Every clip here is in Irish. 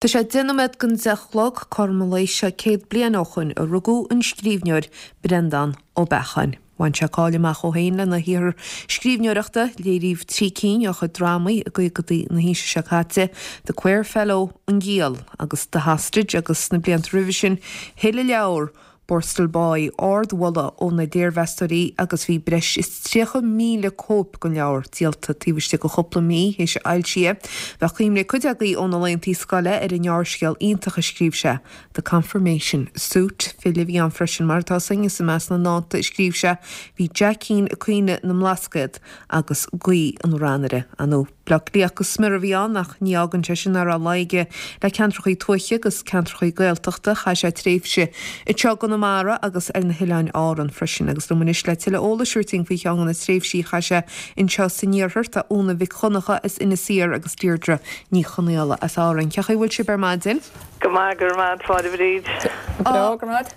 Tá sé 10 nóiméad don 10 a chlog, cothrom an lae seo 100 bliain ó shoin a rugadh an scríbhneoir Breandán Ó Beacháin. Bhain sé cáil amach dhó féin lena shaothar scríbhneoireachta, léiríodh 3 cinn dá chuid drámaí i gcaogadaí na haoise seo caite, The Quare Fellow, An Giall agus The Hostage agus sna blianta roimhe sin thuill a leabhar Borstal Boy ardmholadh ó na léirmheastóirí agus bhí breis is 30,000 cóip den leabhar díolta taobh istigh de chúpla mí théis a fhoilsithe. Bheadh cuimhne ag cuid agaibh óna laethantaí scoile ar an ngearrscéal iontach a scríobh sé, The Confirmation Suit. File a bhí ann freisin, mar atá 'fhios againn, is i measc na ndánta a scríobh sé bhí Jackín ag Caoineadh na mBlascaod agus Guí an Ranaire. Ar ndóigh. Bleá Cliathach go smior a bhí ann ach ní fhágann sé sin nach raibh luí aige le ceantrachaí tuaithe agus ceantrachaí Gaeltachta. Chaith sé tréimhse anseo i gConamara agus ar na hOileáin Árann freisin. Agus liom anois le tuilleadh eolais a thabhairt dúinn faoi cheann de na tréimhsí a chaith sé anseo san iarthar tá Úna Mhic Dhonncha as Inis Oírr agus Deirdre Ní Chonaola as Árainn. Cén chaoi a bhfuil sibh ar maidin? Go maith, go raibh maith agat, a Bhríd. Go breá, go raibh maith.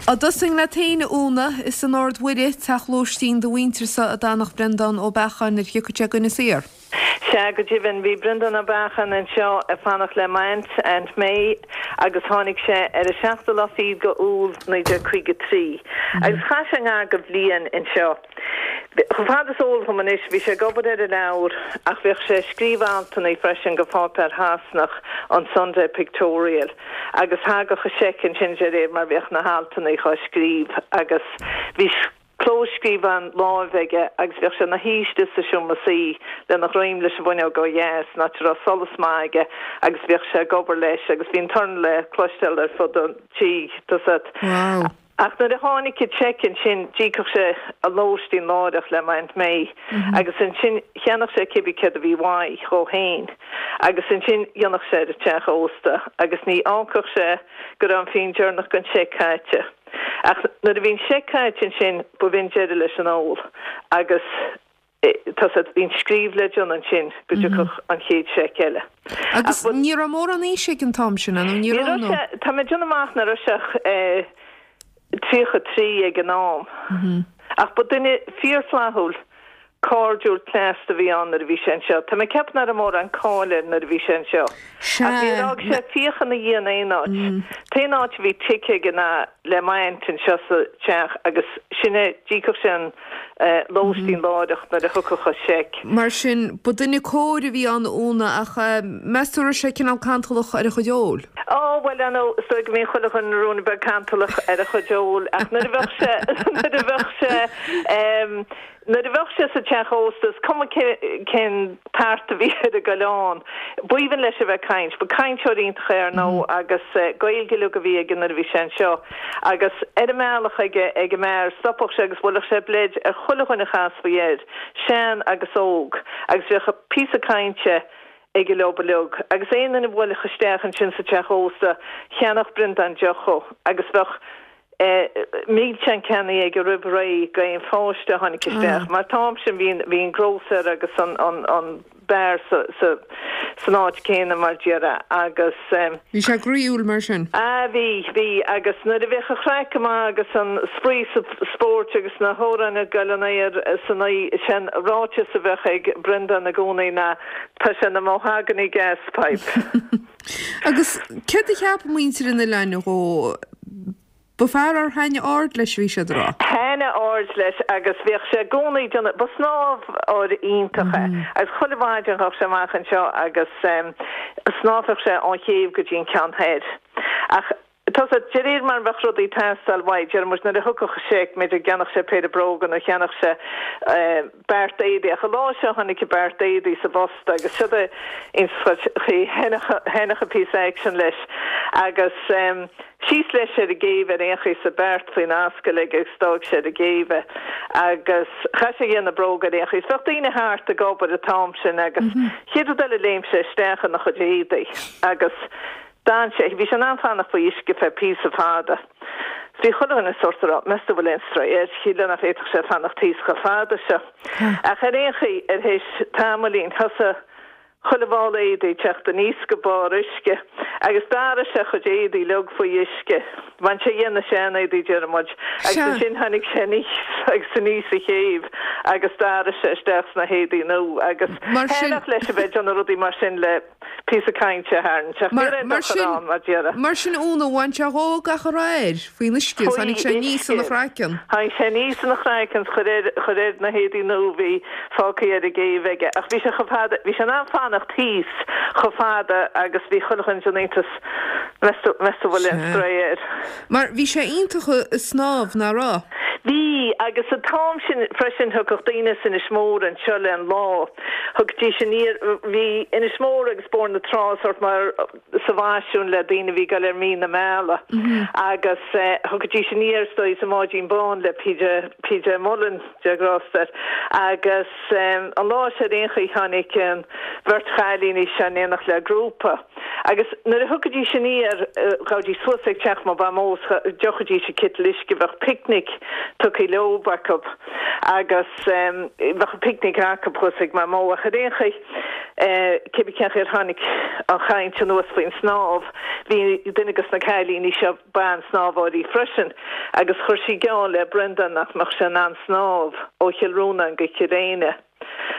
Á dtosóinn leat féin, a Úna, is in Ard Mhuire, teach lóistín do mhuintirsa a d'fhanadh Breandán Ó Beacháin nuair a thiocfadh sé go Inis Oírr. Sea, go deimhin, bhí Breandán Ó Beacháin anseo ag fanacht le m'aint, Aunt May, agus tháinig sé ar an seachtú lá fichead go Iúil 1953. Agus chaith sé ngar go bhliain anseo. Chomh fada is eol dhom anois, bhí sé ag obair ar a leabhar ach bhíodh sé ag scríobh altannaí freisin go pháipéar Shasanach, an Sunday Pictorial, agus thagadh a seic ansin de réir mar bhíodh na haltannaí dhá scríobh agus bhí clóscríobhán láimhe aige agus bhíodh sé ina shuí istigh sa seomra suí lena dhroim leis an bhfuinneog ó dheas, in áit a raibh solas maith aige agus bhíodh sé ag obair leis agus bhí an torann le cloisteáil ar fud an tí, tá 'fhios agat. Wow. Ach nuair a tháinig an seic ansin d'íocfadh sé an lóistín láithreach le m'Aunt May agus ansin cheannódh sé cibé céard a bhí uaidh dhó féin agus ansin dhéanfadh sé ar an teach ósta agus ní fhágfadh sé go raibh an phingin deireanach den seic caite. Ach nuair a bhí an seic caite ansin b'in deireadh leis an ól agus tá 'fhios agat, bhí an scríobh le déanamh ansin go dtiocfadh an chéad seic eile. Agus ní raibh mórán aoise ag an t-am sin, nó ní raibh, nó? Ní raibh sé, tá mé ag déanamh amach nach raibh sé ach 33 ag an am. Ach ba duine fíorfhlaithiúil, cairdiúil, cneasta a bhí ann nuair a bhí sé anseo. Tá mé ag ceapadh nach raibh mórán cáil air nuair a bhí sé anseo. Ach níor fhág sé fiacha ina dhiaidh in aon áit. T-aon áit a bhí tigh aige ná le m'aint anseo sa teach agus sin é, d'íocfadh sé an lóistín láithreach nuair a thiocfadh an seic. Mar sin, ba duine cóir a bhí ann, a Úna, ach meas tú an raibh sé cineál cantalach ar a chuid óil? Ó, bhuel, ar ndóigh, is dóigh go mbíonn chuile dhuine ruainne beag cantalach ar a chuid óil, ach nuair a bheadh sé, nuair a bheadh sé, nuair a bheadh sé sa teach ósta, is cuma cén tart a bhí ar an gcoileán, b'aoibhinn leis a bheith ag caint. Ba cainteoir iontach é, ar ndóigh, agus Gaeilge uilig a bhí aige nuair a bhí sé anseo. Agus ar an mbealach ag ag an mbeár, stopadh sé agus bhuailfeadh sé bleid ar chuile dhuine a chasfaí air, sean agus óg, agus bheadh píosa cainte aige leob uilig. Agus aon duine a bhuailfeadh isteach ansin sa teach ósta, cheannódh Breandán deoch dhó, agus bheadh milseáin ceannaithe aige roimh ré d'aon pháiste a tháinig isteach, mar an t-am sin bhí bhí an grósaer agus an an beár san áit céanna mar déarfá agus. Bhí sé groíúil mar sin. Ah bhí, bhí agus nuair a bheadh an chraic go maith agus an spraoi sa spóirt agus na hamhráin ag goil in aer san oíche, sé'n ráiteas a bheadh ag Breandán i gcónaí ná tá sé ina mahogany gas pipe. Agus céard a cheap muintir an oileáin dhó? Ba fear ar thaitnigh aird leis a bhí siad a rá. Thaitnigh aird leis agus bhíodh sé i gcónaí ag déanamh, ba snámhóir iontach é agus chuile mhaidin ghabhadh sé amach anseo agus shnámhfadh sé ón chéibh go dtí an ceann thoir. Ach tá 'fhios agat, de réir mar a bheadh rudaí ag teastáil uaidh, déarfaidh muid nuair a thiocfadh an seic, b'fhéidir go gceannódh sé péire bróga nó cheannódh sé beart éadaí ach an lá seo tháinig an beart éadaí sa bpost agus siod é ins thaitneodh an píosa aicsean leis agus síos leis ar an gcéibh ar aon chaoi is an beart faoina ascaill aige agus d'fhág sé ar an gcéibh é agus chaith sé dhe na bróga ar aon chaoi. Bheadh daoine thart ag obair an t-am sin agus chéad rud eile léim sé isteach ina chuid éadaí agus D'fhan sé, bhí sé in ann fanacht faoi uisce feadh píosa fada. Bhí chuile dhuine sórt ag rá, meas tú bhfuil aon stró air, shílfeá nach bhféadfadh sé fanacht thíos chomh fada seo. Ach ar aon chaoi, ar théis tamaillín, thosaigh. Chuile mhála éadaí ag teacht aníos go barr uisce agus d'athraigh sé a chuid éadaí uilig faoi uisce. Bhain sé dhe na sean-éadaí déarfaidh muid agus ansin tháinig sé aníos agus aníos an chéibh agus d'athraigh sé isteach sna héadaí nua agus thaitneodh leis a bheith ag déanamh rudaí mar sin le píosa cainte a tharraingt ach ní raibh aon dochar ann mar déarfá. Mar sin Úna, bhain sé dhó gach a raibh air faoin uisce is tháinig sé aníos ina chraiceann. Tháinig sé aníos ina chraiceann is chuir air chuir air na héadaí nua a bhí fágtha ar an gcéibh aige. Ach bhí sé chomh fada, bhí sé in ann fanacht thíos chomh fada agus bhí chuile dhuine den iontas, meas tú, meas tú bhfuil aon spré air. Mar bhí sé iontach ag snámh, nach raibh? Bhí, agus an t-am sin freisin thiocfadh daoine as Inis Mór anseo le an lá, thiocfaidís aniar, bhí Inis Mór agus Bóthar na Trá sórt mar sa bhfaisiún le daoine a bhí ag dul ar mí na meala agus thiocfaidís aniar is dóigh sa mbáidín bán le PJ, PJ Mullen. Dia grásta air. Agus an lá seo ar aon chaoi tháinig an bheirt chailíní seo in éineacht le grúpa. Agus nuair a thiocfaidís aniar, ghabhaidís suas ag teach mo mhamó is d'fhiuchaidís an citeal uisce, bheadh picnic tugtha leob acu agus bheadh an picnic acu thuas ag mamó. Ach ar aon chaoi, cébí cén chaoi ar tháinig an chaint anuas faoin snámh, bhí duine de na cailíní seo, ban-snámhóirí freisin agus chuir sí geall le Brendan nach mbeadh sé in ann snámh ó Chill Rónáin go Cill Éinne.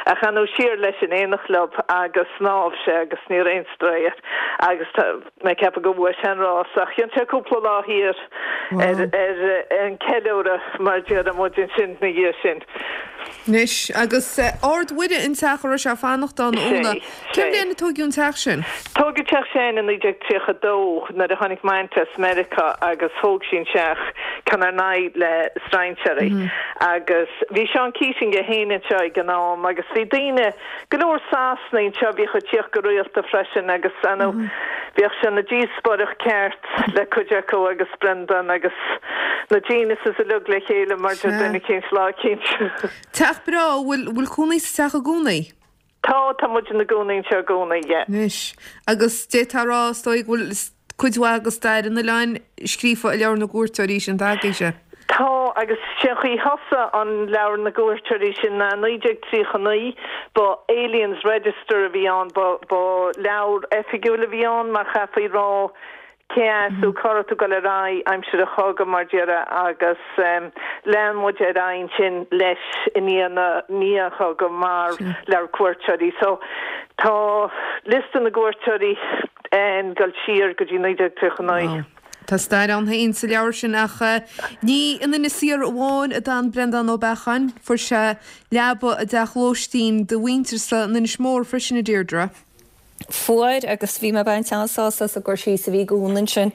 Ach ar ndóigh siar leis in éineacht leob agus shnámh sé agus ní raibh aon strae air agus tá mé ag ceapadh go bhuaigh sé an rás ach dhein sé cúpla lá thiar ar ar an ceiliúradh mar déarfaidh muid ansin na dhiaidh sin. Anois, agus Ard Mhuire an teach a raibh sé ag fanacht ann, Úna. Cén bhliain a tóigeadh an teach sin? Tóigeadh teach Sheáin i 1932 nuair a tháinig m'aint as Meiriceá agus thóg sí an teach ceann ar n-aghaidh le strainséirí. Agus bhí Seán Keating é féin anseo ag an am agus bhí daoine, go leor Sasanaigh anseo a bhíodh ag tíocht go rialta freisin agus ar ndóigh bhíodh sé ina dhíospóireacht ceart le cuid acu agus Brendan agus na geniuses uilig le chéile mar deir duine eicínt lá eicínt. Teach breá, bhfuil, bhfuil cónaí sa teach i gcónaí? Tá, tá muid ina gcónaí anseo i gcónaí, yeah. Anois, agus d'fhéadfá a rá is dóigh go bhfuil cuid mhaith de stair an oileáin scríofa i Leabhar na gCuairteoirí sin atá agaibhse. Tá, agus sé an chaoi a thosaigh an Leabhar na gCuairteoirí sin ná i 1939, ba Aliens Register a bhí ann, ba, ba leabhar oifigiúil a bhí ann mar chaithfí rá cé as tú, cá raibh tú ag dul ar aghaidh aimsir an chogaidh mar déarfá agus lean muid ar aghaidh ansin leis i ndiaidh na, ndiaidh an chogaidh mar leabhar cuairteoirí. So tá liosta na gcuairteoirí ag dul siar go dtí 1939. Tá stair ann féin sa leabhar sin ach ní in Inis Oírr amháin a d'fhan Breandán Ó Beacháin. Fuair sé leaba i dteach lóistín do mhuintir-sa in Inis Mór freisin, a Deirdre. Fuair agus bhí mé ag baint an-sásamh as an gcur síos a bhí ag Úna ansin,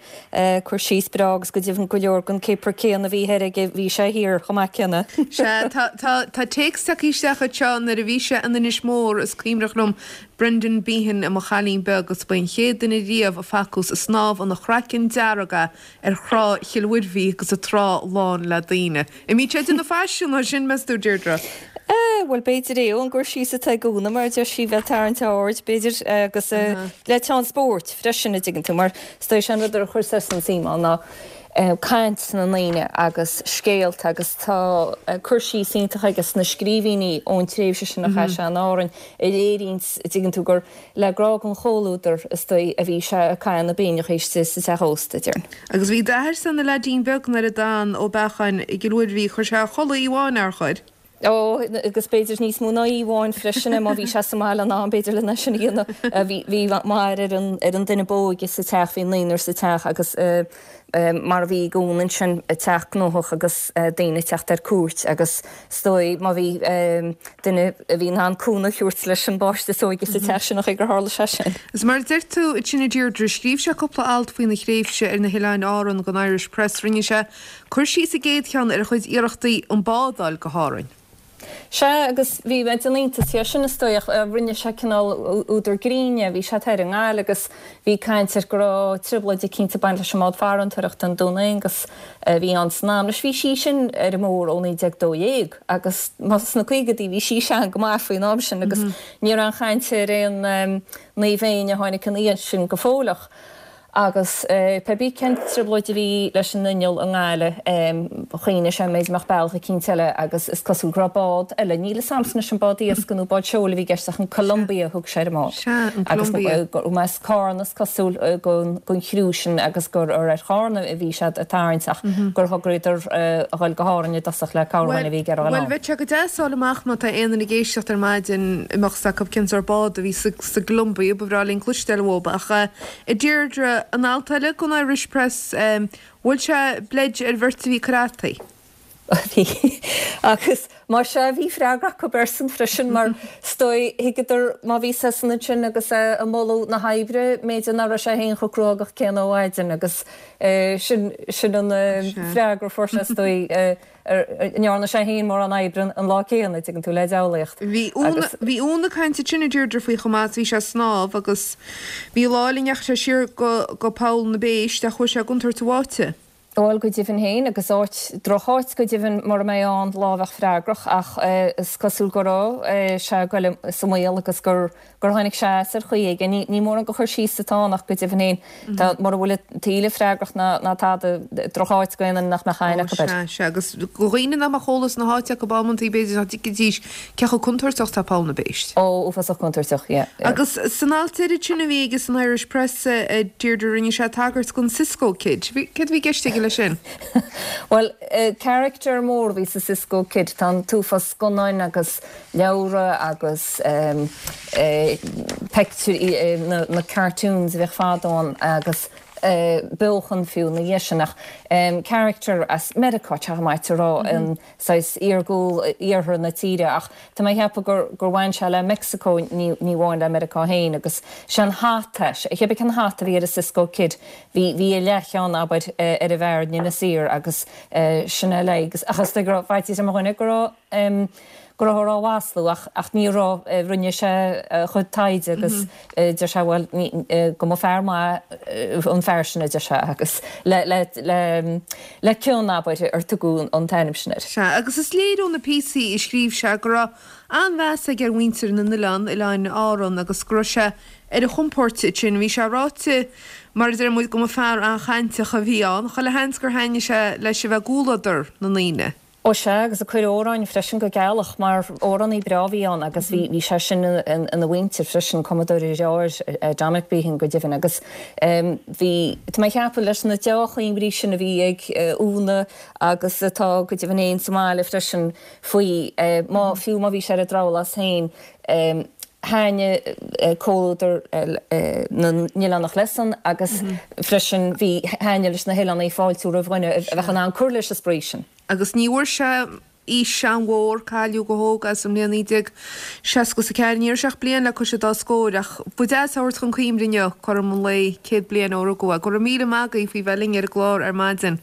cur síos breá agus go deimhin go leor den cipir céanna a bhí thoir aige bhí sé thiar chomh maith céanna. Sea, tá, tá, tá téacs tagtha isteach anseo nuair a bhí sé in Inis Mór is cuimhneach liom Brendan Behan i mo chailín beag agus ba é an chéad duine riamh a facthas ag snámh ina chraiceann dearg é ar thrá Chill Mhuirbhigh agus an trá lán le daoine. An mbíonn sé ag déanamh faisiún as sin, meas tú, Deirdre? Eh, bhuel, b'fhéidir é ón gcur síos atá ag Úna, mar a deir sí, bheith ag tarraingt aird, b'fhéidir, agus le teann spóirt freisin, a dtuigeann tú, mar is dóigh sé an rud a chuir seisean suim ann ná caint na ndaoine agus scéalta agus tá cur síos iontach aige sna scríbhinní ón tréimhse sin a chaith sé in Árainn a léiríonns, a dtuigeann tú, gur le grá don chomhluadar, is dóigh, a bhí sé ag caitheamh na bpingineacha istigh sa teach ósta, déarfainn. Agus bhí d'athair-sa ina leaidín beag nuair a d'fhan Ó Beacháin i gCill Mhuirbhigh, chuir sé a chodladh oíche amháin, nár chuir? Ó, agus b'fhéidir níos mó ná oíche amháin freisin, má bhí sé sa mbaile in am, b'fhéidir lena sin a dhéanamh. Bhí, bhí m'athair ar an, ar an duine b'óige sa teach, bhí naonúr sa teach agus mar a bhí ag Úna ansin, teach gnóthach agus daoine ag teacht ar cuairt agus is dóigh má bhí duine a bhí in ann cúnamh a thabhairt leis an bpáiste is óige sa teach sin an chaoi gur tharla sé sin. Is mar a deir tú ansin a Deirdre, scríobh sé cúpla alt faoina thréimhse ar na hOileáin Árann don Irish Press. Rinne sé cur síos sa gcéad cheann ar a chuid iarrachtaí an bád a fháil go hÁrainn. Sea, agus bhí mé den iontas dhe sin, is dóigh, ach rinne sé cineál údar grinn dhe. Bhí sé thoir i nGaillimh agus bhí caint air go raibh trioblóid eicínt ag baint leis an mbád farantóireachta, an Dún Aonghus, a bhí ann san am. Anois bhí sí sin ar an mór ó 1912 agus sna caogaidí bhí sí sean go maith faoin am sin agus ní raibh aon chaint ar aon Naomh Éinne a tháinig ina dhiaidh sin go fóilleach. Agus pé bith cén trioblóid a bhí leis an inneall i nGaillimh, chuimhnigh sé an mb'fhéidir go mbeadh bealach eicínt eile agus is cosúil go raibh bád eile, níl 'fhios a'msa anois an bád iascaigh nó bád seoil a bhí i gceist ach an Columbia a thug sé ar an mbád. Sea, an Columbia. Agus go as Cárna is cosúil gon chriú sin agus gur ar Chárna a bhí siad ag tarraingt ach gur thograíodar a dhul go hÁrainn i dtosach le cabhair dhuine a bhí ag iarraidh a dhul Bhuel, ann. bheadh sé go deas fháil amach má tá aon duine ag éisteacht ar maidin a mbeadh 's acu cén sórt bád a bhí sa gColumbia, ba bhreá linn cloisteáil uathub ach A Deirdre, an alt eile gon Irish Press, bhuail sé bleid ar bheirt a bhí ag cur fhataí. Bhí. Agus más ea, bhí freagra acu airsean freisin mar is dóigh, thuigeadar má bhí seisean ansin agus é ag moladh na hoibre, mb'fhéidir nach raibh sé féin chomh cruógach céanna ó mhaidin agus sin, sin an freagra a fuair sé is dóigh. An ndearna sé féin mórán oibre an lá céanna, an dtuigeann tú, le diabhlaíocht. Bhí Úna, bhí Úna ag caint ansin a Deirdre faoi chomh maith is bhí sé ag snámh agus bhí lá eile a ndeachaigh sé siar go, go Poll na bPéist ach chuaigh sé i gcontúirt an bháite. Bhuel, go deimhin féin, agus áit, drocháit go deimhin mura mbeidh ann lá a bheadh freagrach ach is cosúil go raibh sé ag goil sa mbaol agus gur, gur tháinig sé as ar chaoi éigin. Ní mórán de chur síos atá ann ach go deimhin féin, tá, mura bhfuil an taoille freagrach ná, ná tada, drocháit go aon duine nach mbeadh aithne acu air. Sea, sea, agus do dhaoine nach mbeadh eolas na háite acu amantaí b'fhéidir nach dtuigfidís cé chomh contúirteach is atá Poll na bPéist. Ó, uafásach contúirteach, yeah, yeah. Agus san alt deiridh sin a bhí aige san Irish Press, a Deirdre, rinne sé tagairt don Cisco Kid. Céard a bhí i gceist aige leis sin? Bhuel, character mór a bhí sa Cisco Kid. Tá an t-uafás scannáin agus leabhra agus peictiúirí, na cartoons a bhíodh fadó ann agus beochan fiú ina dhiaidh sin ach character as Meiriceá, tá sé maith a rá, an saghas iargúil iarthar na tíre ach tá mé a cheapadh gur gur bhain sé le Meicsiceo ní ní amháin le Meiriceá féin agus sé an hata, cibé cén hata a bhí ar an Cisco Kid bhí bhí a leathcheann abair ar an bhfear in Inis Oírr agus sin é le ach is dóigh go raibh faitíos ar mo dhuine go raibh go rabhthar á mhaslú ach ach ní raibh, rinne sé a chuid taighde agus deir sé bhuel go mba fear maith an fear sin a deir sé agus le le le le cion abair ar tugadh an t-ainm sin air. Sea, agus is léir ó na píosaí a scríobh sé go raibh an-mheas aige ar mhuintir na n-oileán, Oileáin Árann, agus go raibh sé ar a chompord ansin. Bhí sé ráite, mar a deir muid, go mba fear an-chainteach a bhí ann. Chuile sheans gur thaitnigh sé leis a bheith i gcomhluadar na ndaoine. Ó sea, agus ag cur amhráin freisin go gealach, mar amhránaí breá a bhí ann agus bhí, bhí sé sin ina mhuintir freisin, cumadóir a dheartháir, Dominic Behan go deimhin, agus bhí, tá mé ag ceapadh leis na deá-chuimhní sin a bhí ag Úna agus atá go deimhin féin sa mbaile freisin faoi, má, fiú má bhí sé ar an drabhlás féin, thaitnigh comhluadar na n-oileánach leis-san agus freisin bhí, thaitnigh leis na hoileánaigh fáiltiú roimh dhuine a bheadh in ann cur leis an spraoi sin. Agus ní bhfuair sé aois an-mhór, cailleadh go hóg é sa mbliain 1964. Ní raibh sé ach bliain le cois an dá scóir, ach ba deas a thabhairt chun cuimhne inniu, cothrom an lae, 100 bliain ó rugadh é. Go raibh míle maith agaibh faoi bheith linn ar an gclár ar maidin.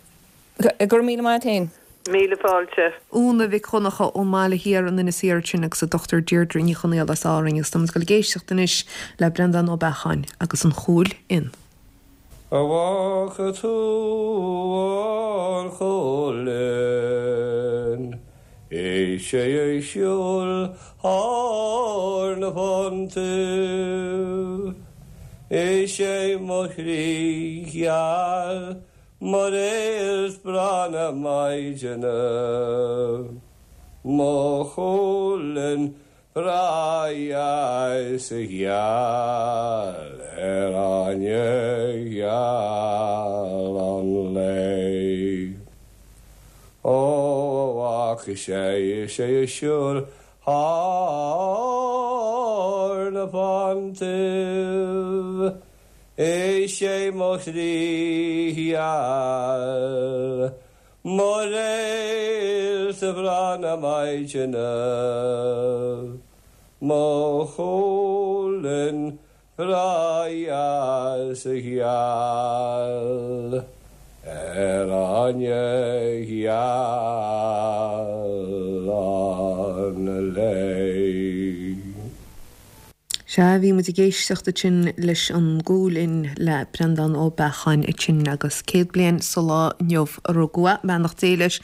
Go raibh míle maith a't féin. Míle fáilte. Úna Mhic Dhonncha ón mBaile Thiar in Inis Oírr ansin agus an Dr Deirdre Ní Chonaola as Árainn agus táimid ag dul ag éisteacht anois le Breandán Ó Beacháin agus an Chúil Fhinn. A bhfaca tú an Chúil Fhinn? Is é ag siúl thar na fonntaibh. Is é mo chroí gheal Mar réalt breá na maidine, mo Chúil Fhinn breá dheas gheal ar fháinne gheal an lae. Ó, a bhfaca sé is é ag siúl thar na fonntaibh, Is é mo chroí gheal, mo réalt bhreá na maidine, mo Chúil Fhinn bhreá dheas gheal ar fháinne gheal an lae. Sea, bhí muid ag éisteacht ansin leis an gCúil Fhinn le Breandán Ó Beacháin ansin agus 100 bliain sa lá inniu a rugadh é, beannacht Dé leis.